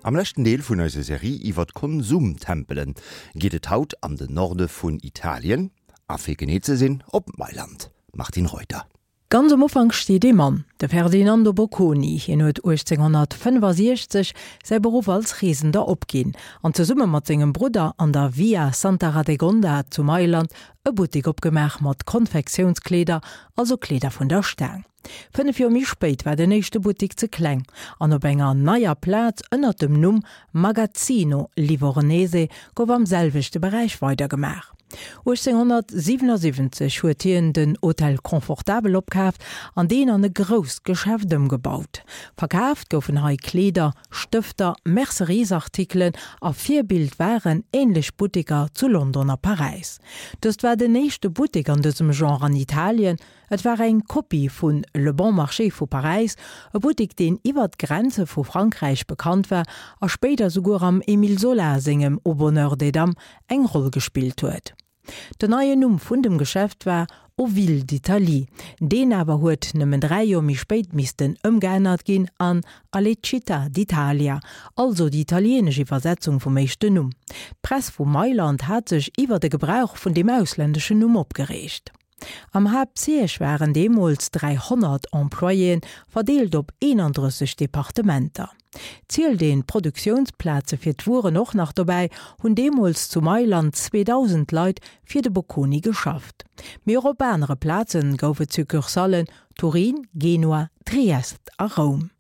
Am leschten Deel vun eiser Serie iwwer d'Konsumtempelen geet et haut an den Norde vun Italien, a fir genee ze sinn op Mailand. Martine Reuter. Ganz am Ufank steet ee Mann, de Ferdinando Bocconi. Hien huet 1865 säi Beruff als Reesender opginn an zesumme mat sengem Brudder an der Via Santa Radegonda zu Mailand e Buttek opgemaach mat Konfektiounskleeder, also Kleeder vun der Staang. 5 Joer méi spéit war den éischte Buttek ze kleng an op enger neier Plaz ënnert dem Numm Magazzino Livornese gouf am selwechte Beräich weidergemaach. 1877 huet hien den Hotel Confortabel opkaaft an deen an e grousst Geschäft ëmgebaut. Verkaaft goufen hei Kleeder, Stëfter, Merceriesartikelen a Virbild waren änlech Butteker zu London a Paräis. Dëst war den éischte Buttek an dësem Genre an Italien. Et war eng Kopie vu Le Bon Marché vu Paräis, e Buttek deen iwwer d'Grenze vu Frankräich bekannt war a spéider souguer am Émile Zola sengem Au bonheur des dames eng Roll gespillt huet. Den neien Numm vun dem Geschäft war Aux Villes d'Italie, deen awer huet nëmmen 3 Joer méi spéit missten ëmgeännert ginn an Alle Città d'Italia, also déi italienesch Iwwersetzung vum éischten Numm. D'Press vu Mailand hat sech iwwer de Gebrauch vun deem ausländeschen Numm opgereegt. Am Haaptsiège waren deemools 300 Employéen, verdeelt op 31 Departementer. Zielt een d'Produktiounsplaze fir d'Wueren och nach dobäi, hunn deemools zu Mailand 2.000 Leit fir de Bocconi geschafft. Mee och op anere Plaze gouf et Succursallen, Turin, Genua, Triest a Roum.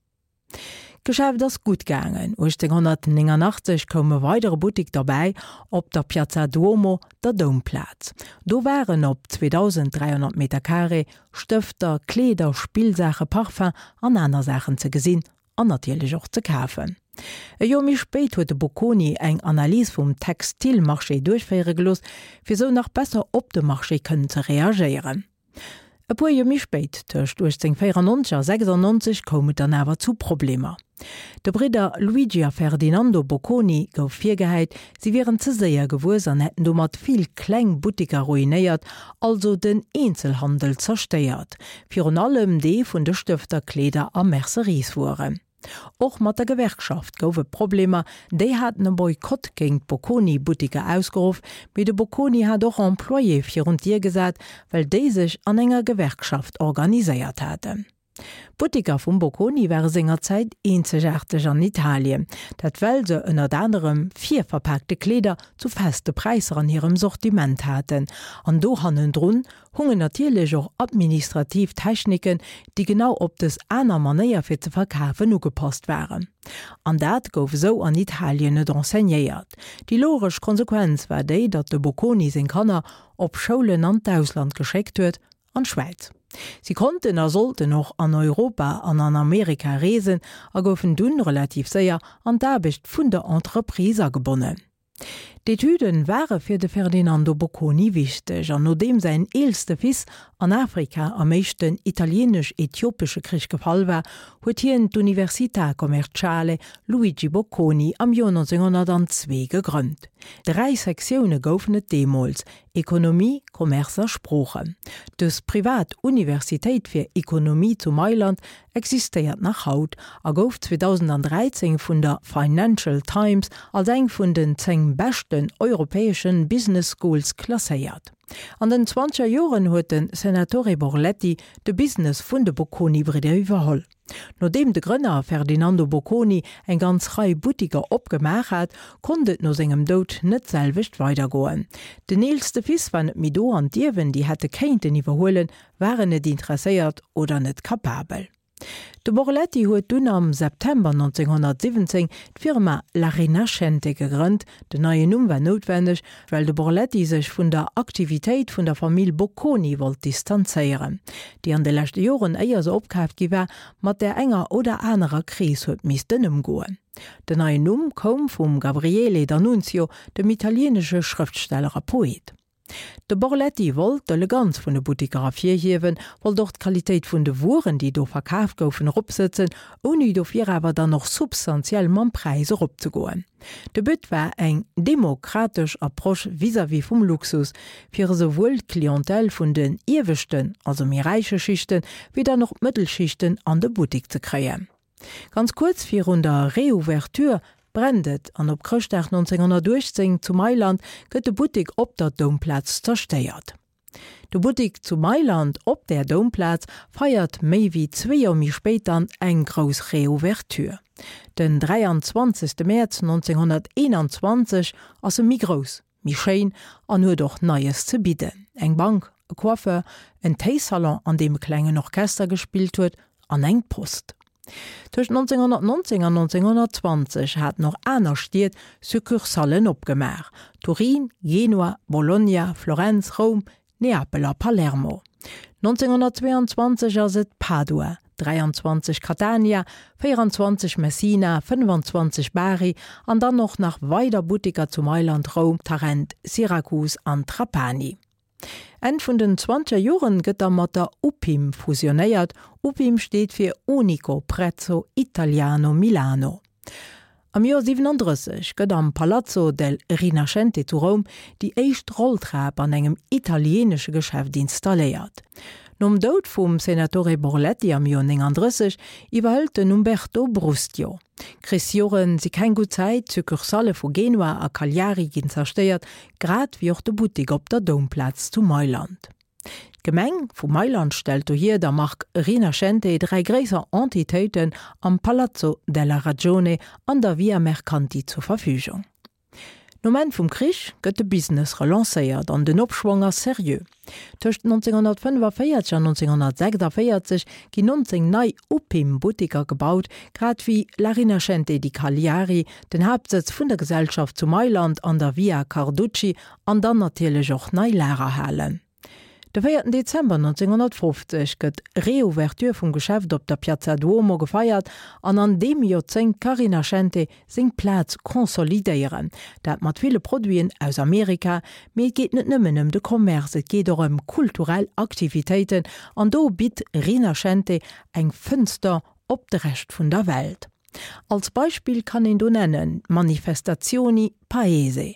D'Geschäft ass gutt gaangen. 1889 koum e weidere Buttek derbäi op der Piazza Duomo, der Doumplaz. Do waren op 2.300 Meter Carré Stëfter, Kleeder, Spillsaache, Parfum an aner Saachen ze gesinn an natierlech och ze kafen. E Joer méi spéit huet de Bocconi eng Analys vum Textilmarché duerchféiere gelooss, fir sou nach besser op de Marché kënnen ze reagéieren. E puer Joer méi spéit, tëscht 1894 a 96, koum et dann awer zu Problemer. De Bridder Luigi a Ferdinando Bocconi gouf virgehäit, si wieren ze séier gewuess an hätten domat vill kleng Butteker ruinéiert, also den Eenzelhandel zerstéiert, virun allem dee vun de Stëfter, Kleeder a Mercerieswueren. Och mat der Gewerkschaft gouf et Problemer, déi haten e Boykott géint d'Bocconi-Butteker ausgeruff, mee de Bocconi hat och Employéë virun d'Dier gesat, well déi sech an enger Gewerkschaft organiséiert haten. D'Butteker vum Bocconi ware sengerzäit eenzegaarteg an Italien, dat well se ënnert anerem virverpaakte Kleeder zu feste Präisser an hirem Sortiment haten an do hannendrun hungen natierlech och administrativ Techniken, déi genau op dës aner Manéier fir ze verkafen ugepasst waren. An dat gouf esou an Italien net enseignéiert. Déi logesch Konsequenz war déi, datt de Bocconi seng Kanner op Schoulen an d'Ausland geschéckt huet, an d'Schwäiz. Si konnten a sollten och an Europa an an Amerika reesen a goufen dunn relativ séier an d'Aarbecht vun der Entreprise agebonnen. D'Etüden ware fir de Ferdinando Bocconi wichteg, an nodeem säin eelste Fils an Afrika am Éischten Italieenesch-Äthiopesche Krich gefall war, huet hien d'Università Commerciale Luigi Bocconi am Joer 1902 gegrënnt. Dräi Sektioune goufen et deemools, Ekonomie, Commerce a Sproochen. Dës privat Universitéit fir Ekonomie zu Mailand existéiert nach haut a gouf 2013 vun der Financial Times als eng vun den 10 beschten europäesche Business Schools klasséiert. An den zwanzeger Joren huet de Senatore Borletti de Business vun de Bocconi-Bridder iwwerholl. Nodeem de Grënner Ferdinando Bocconi eng ganz Rei Buttiker opgemaach hat, konnt et no sengem Doud net d'selwecht weidergoen. Den eelste Fils war net méi do an d'Ierwen, déi hätte kéinten iwwerhuelen, waren net interesséiert oder net kapabel. De Borletti huet dunn am September 1917 d'Firma La Rinascente gegrënnt. Den neien Numm war noutwenneg, well de Borletti sech vun der Aktivitéit vun der Famill Bocconi wollt distanzéieren, déi an de leschte Joren, éier se opkaaft gi war, mat där enger oder anerer Kris huet missten ëmgoen. Den neien Numm koum vum Gabriele D'Annunzio, dem italieenesche Schrëftsteller a Poet. De Borletti wollt d'Eleganz vun de Buttiker ervirhiewen, wollt och d'Qualitéit vun de Wueren, déi do verkaf goufen, eropsëtzen, ouni dofir awer dann och substantiell mam Präis eropzegoen. De But war eng demokratesch Approche vis-à-vis vum Luxus, fir esouwuel d'Clientèle vun den ieweschten, also méi räiche Schichten, wéi dann och d'Mëttelschichten an de Buttik ze kréien. Ganz kuerz virun der Reouverture. brennt et an op Chrëschtdag 1918 zu Mailand gëtt de Buttek op der Doumplaz zerstéiert. De Buttek zu Mailand op där Doumplaz feiert méi wéi zwee Joer méi spéit dann eng grouss Reouverture. Den 23 Mäerz 1921 ass e méi grouss, méi schéin an huet och Neies ze bidden, eng Bank, e Coiffeur, en Téisalon an deem e klengen Orchester gespillt huet an eng Post. Tëscht 1919 an 1920 haten och aner Stied Succursallen opgemaach, Turin, Genua, Bologna, Florenz, Roum, Neapel a Palermo. 1922 ass et Padua, 23 Catania, 24 Messina, 25 Bari an dann och nach weider Butteker zu Mailand, Roum, Tarent, Syrakus an Trapani. Enn vun den zwanzeger Joren gëtt da mat der UPIM fusionéiert, UPIM steet fir Unico Prezzo Italiano Milano. Am Joer 37 gëtt am Palazzo del Rinascente zu Roum déi éischt Rolltrap an engem italieenesche Geschäft installéiert. Nom Doud vum Senatore Borletti am Joer 39 iwwerhëlt den Umberto Brustio. D'Krichsjore si keng gutt Zäit, d'Succursallë vu Genua a Cagliari ginn zerstéiert, grad wéi och de Buttek op der Doumplaz zu Mailand. D'Gemeng vu Mailand stellt dohier der Mark Rinascente 3 gréisser Entitéiten am Palazzo della Ragione an der Via Mercanti zur Verfügung. Nom Enn vum Krich gëtt de Business relancéiert an den Opschwong ass seriö. Tëscht 1945 an 1946 ginn 19 nei Upim-Butteker gebaut, grad wéi La Rinascente di Cagliari, den Haaptsëtz vun der Gesellschaft zu Mailand an der Via Carducci an dann natierlech och nei Lagerhalen. De véierten Dezember 1950 gëtt d'Reouverture vum Geschäft op der Piazza Duomo gefeiert an an deem Joerzéngt ka Rinascente seng Plaz consolidéieren. Dat mat ville Produiten aus Amerika, mee et geet net nëmmen ëm de Commerce, et geet och ëm kulturell Aktivitéiten an do bitt Rinascente eng Fënster op de Rescht vun der Welt. Als Beispill kann een do nennen d'Manifestazioni Paese,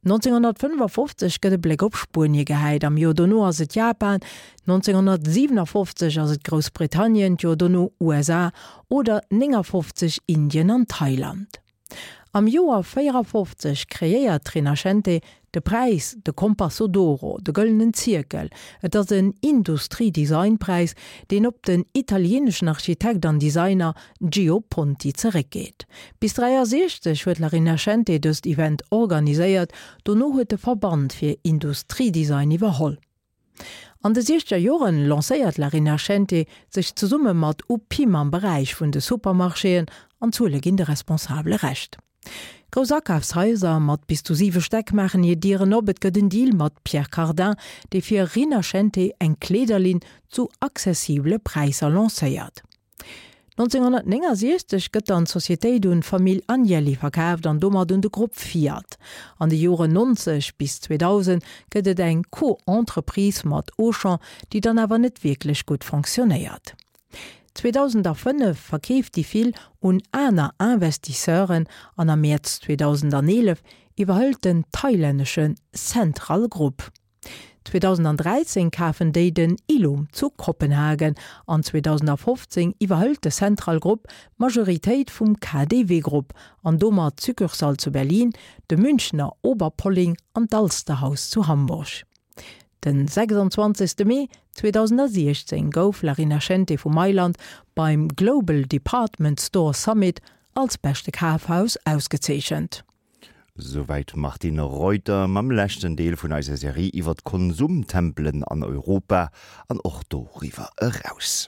1955 gëtt e Bléck op Spuenie gehäit, am Joer dono ass et Japan, 1957 ass et Groussbritannien, d'Joer dono USA oder 59 Indien an Thailand. Am Joer 54 kreéiert d'Rinascente de Präis, de Compasso d'Oro, de gëllenen Zierkel. Et ass en Industrie-Design-Präis, deen op den italieeneschen Architekt an Designer Gio Ponti zeréckgeet. Bis 63 huet La Rinascente dëst Event organiséiert, dono huet de Verband fir Industriedesign iwwerholl. An de siechzeger Joren lancéiert La Rinascente sech zesumme mat Upim am Beräich vun de Supermarchéen an d'Zuele ginn de Responsabele Recht. Grouss Akafshaiser mat bis zu siwe Stäck maachen hir Dieren op. Et gëtt en Deal mat Pierre Cardin, dee fir Rinascente eng Kleederlinn zu accessibele Präisser lancéiert. 1969 gëtt dann d'Societéit un d'Famill Agnelli verkaaft an domat un de Grupp Fiat. An de Joren 90 bis 2000 gëtt et eng Co-Entreprise mat Auchan, déi dann awer net wierklech gutt fonctionnéiert. 2005 verkeeft déi Fil un aner Investisseuren an am Mäerz 2011 iwwerhëlt den thailännesche Central Group. 2013 kafen déi den Illum zu Kopenhagen an 2015 iwwerhëlt de Central Group d'Majoritéit vum KaDeWe Group an domat d'Succursale zu Berlin, de Münchener Oberpolling an d'Alsterhaus zu Hamburg. Den 26 Mee 2016 gouf La Rinascente vu Mailand beim Global Department Store Summit als beschte Kafhaus ausgezeechent. Souwäit d'Martine Reuter mam leschten Deel vun eiser Serie iwwer d'Konsumtempelen an Europa an och doriwwer eraus.